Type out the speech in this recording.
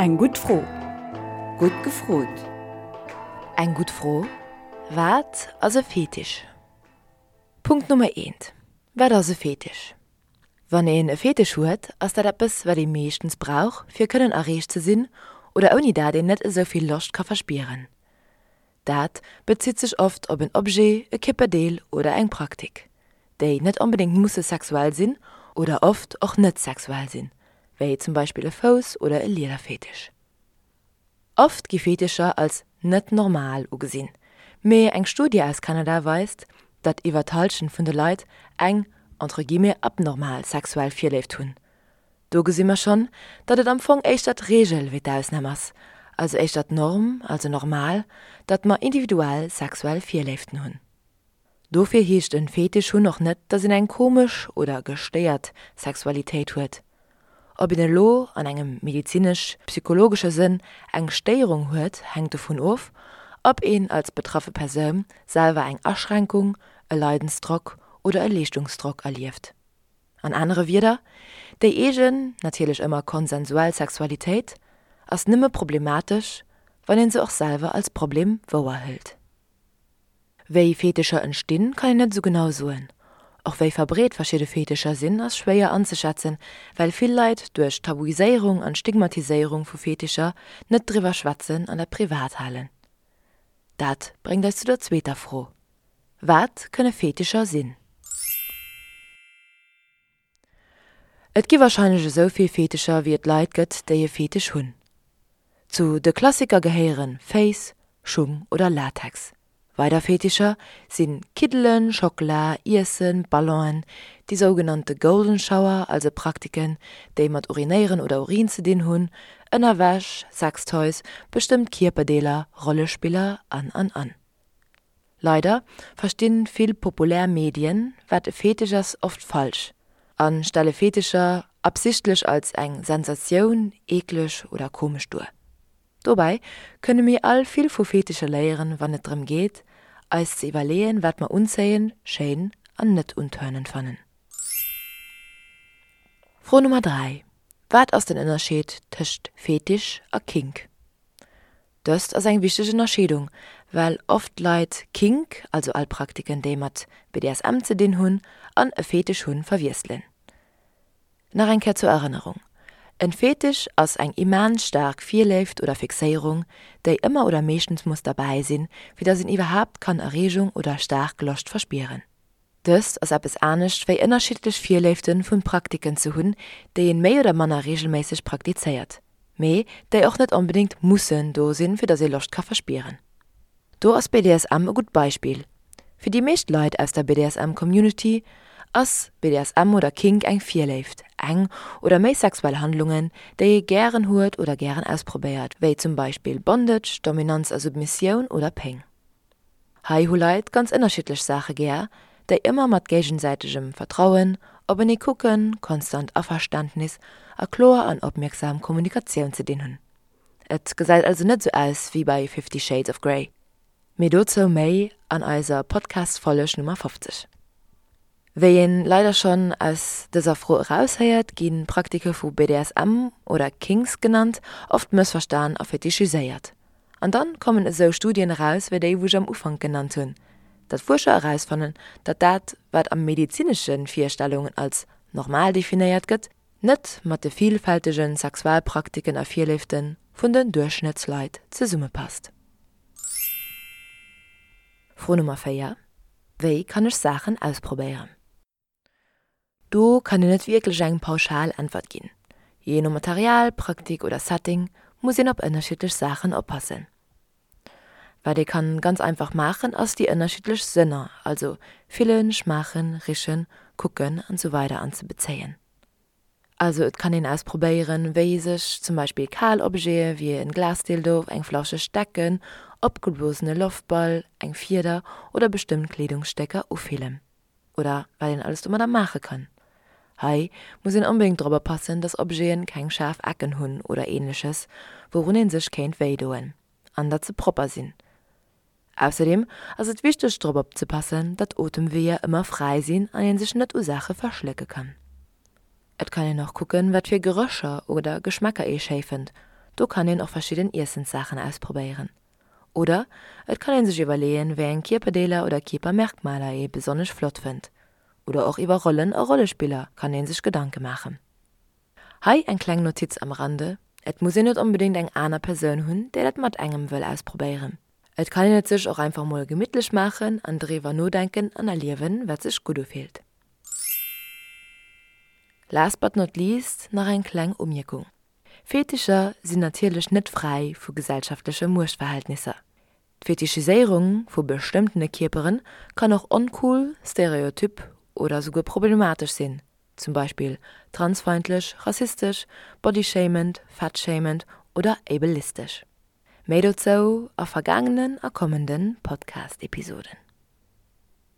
Eng gutt Fro. Gutt gefrot. Eng gutt Fro, Wat ass e Fetisch? Punkt Nummer eent, Wat ass e Fetisch? Wann een e Fetisch huet, ass dat eppes, wat ee meeschtens brauch, fir kënnen erreecht ze sinn oder ouni dat een net esou vill Loscht ka verspieren. Dat bezitt sech oft op en Objet, e Kierperdeel oder eng Praktik, déi net onbedéngt musse sexuell sinn oder oft och net sexuell sinn, wéi zum Beispill e Fouss oder e Liederfetisch. Oft gi Fetischer als net normal ugesinn, mee eng Studie aus Kanada weist, datt iwwer d'Hallschent vun de Leit eng entre guillemets abnormal sexuell Virléift hunn. Do gesi mer schonn, datt et am Fong éischter d'Reegel wéi d'Ausnam ass, also éischter d'Norm, also normal, datt mer individuell sexuell Virléiften hunn. Dofir heescht en Fetisch hunn och net, datt een eng komesch oder gestéiert Sexualitéit huet. Ob een elo an engem medizinesch-psychologesche Sënn eng Stéierung huet, hänkt dovun of, ob een als betraffe Persoun selwer eng Aschränkung, e Leidensdrock oder e Leeschtungsdrock erlieft. An anere Wierder, déi eegen, natierlech ëmmer konsensuell Sexualitéit ass nëmme problematesch, wann een se och selwer als Problem wouerhëlt. Wéi Fetischer entstinn, kann een net esou genau soen. Och wéi verbreet verschidde Fetischer sinn, ass schwéier anzeschätzen, well vill Leit duerch d'Tabuiséierung an d'Stigmatiséierung vu Fetischer net driwwer schwätzen an dat privat halen. Dat bréngt eis zu der zweeter Fro, Wat kënne Fetischer sinn? Et gi warscheinlech esou vill Fetischer wéi et Leit gëtt déi e Fetisch hunn. Zu de Klassiker gehéiere Féiss, Schung oder Latex. Weider Fetischer si Kiddelen, Schockela, Iessen, Ballonen, déi sougenannte Golden Shower, also Praktiken déi mat Urinéieren oder Urin ze dinn hunn, Ënnerwäsch, Sextoys, bestëmmt Kierperdeeler, Rollespiller an an an. Leider verstinn vill populär Medien wat e Fetisch ass oft falsch an stelle Fetischer absichtlech als eng Sensatioun, eekleg oder komesch duer. Dobäi kënne mir all vill vu Fetischer léieren wann et drëm geet eis ze iwwerleeën wat mer unzéien, schéin an net untörnend fannen. Fro Nummer 3, Wat ass den Ënnerscheed tëscht Fetisch a Kink? Dëst ass eng wichteg Ënnerscheedung, well oft Leit Kink, also all Praktiken déi mat BDSM ze dinn hunn, an e Fetisch hunn, verwiesselen. Nach eng Kéier zur Erënnerung, En Fetisch ass eng immens staark Virléift oder Fixéierung, déi ëmmer oder meeschtens muss derbäi sinn, fir dass een iwwerhaapt kann Erreegung oder staark Loscht verspieren. Dëst ass eppes anescht wéi ënnerschiddlech Virléiften vun Praktiken ze hunn, déi een méi oder manner regelméisseg praktizéiert, mee déi och net onbedéngt mussen do sinn, fir dass ee Loscht ka verspieren. Do ass BDSM e gutt Beispill. Fir déi meescht Leit aus der BDSM Community ass BDSM oder Kink eng Virléift, eng oder méi sexuell Handlungen, déi ee gären huet oder gären ausprobéiert, wéi zum Beispill Bondage, Dominanz a Submissioun oder Péng. Hei hu Leit ganz ënnerschiddlech Saache gär, déi ëmmer mat géigesäitegem Vertrauen, openee kucken, konstant Averständnis a kloer an opmierksam Kommunikatioun ze dinn hunn. Et gesäit also net sou aus wéi bei Fifty Shades of Grey. Mee dozou méi an eiser Podcast-Folleg Nummer 50. Wéi een leider schonn aus dëser Fro eraushéiert, gi Praktike vu BDSM oder Kinks genannt, oft mëssverstan a fetischiséiert. An dann kommen esou Studien eraus wéi déi wou ech am Ufank genannt hunn, datt Fuerscher erausfannen, datt dat wat a medezinesche Virstellungen als normal definéiert gëtt, net mat de vilfältege Sexualpraktiken a Virléifte vun den Duerchschnëttsleit zesummepasst. Fro Nummer 4, Wéi kann ech Saachen ausprobéieren? Do kann een net wierklech eng pauschal Äntwert ginn. Jee no Material, Praktik oder Setting muss een op ënnerschiddlech Saachen oppassen. Wat ee kann ganz einfach maachen ass déi ënnerschiddlech Sënner, also fillen, schmaachen, richen, kucken an sou weider anzebezéien. Also et kann een ausprobéieren, wéi sech zum Beispill kal Objete wéi en Glasdildo, eng flauscheg Decken, opgeblosene Loftball, eng Fieder oder bestëmmt Kleedungsstécker ufillen. Oder wat een alles domadder maache kann. Hei muss een onbedéngt drop oppassen, dass Objeten keng schaarf Ecken hunn oder ähnleches, wourun een sech kéint wéidoen. An datt se propper sinn. Ausserdeem ass et wichteg drop opzepassen, datt d'Otemweeër ëmmer fräi sinn an een sech net u Saache verschlécke kann. Et kann een och kucken, wat fir Gerécher oder Geschmäcker ee schéi fënnt. Do kann een och verschidden Iessenssaachen ausprobéieren. Oder et kann een sech iwwerleeën, wéi eng Kierperdeeler oder Kierpermerkmaler ee besonnesch flott fënnt. Oder och iwwer Rollen a Rollespiller kann ee sech Gedanke maachen. Hei eng kleng Notiz am Rande, Et muss een net onbedéngt eng aner Persoun hunn, déi dat mat engem wëll ausprobéieren. Et kann een et sech och einfach mol gemittlech maachen an driwwer nodenken an erliewen, wat sech gutt ufillt. Last but not least nach eng kleng Umierkung, Fetischer sinn natierlech net fräi vu gesellschaftleche Muechtverhältnisser. D'Fetichiséierung vu bestëmmtene Kierpere kann och oncool, stereotyp oder souguer problematesch sinn, zum Beispill transfeindlech, rassistesch, bodyshamend, fatshamend oder ableistesch. Méi dozou a vergaangenen a kommende Podcast-Episoden.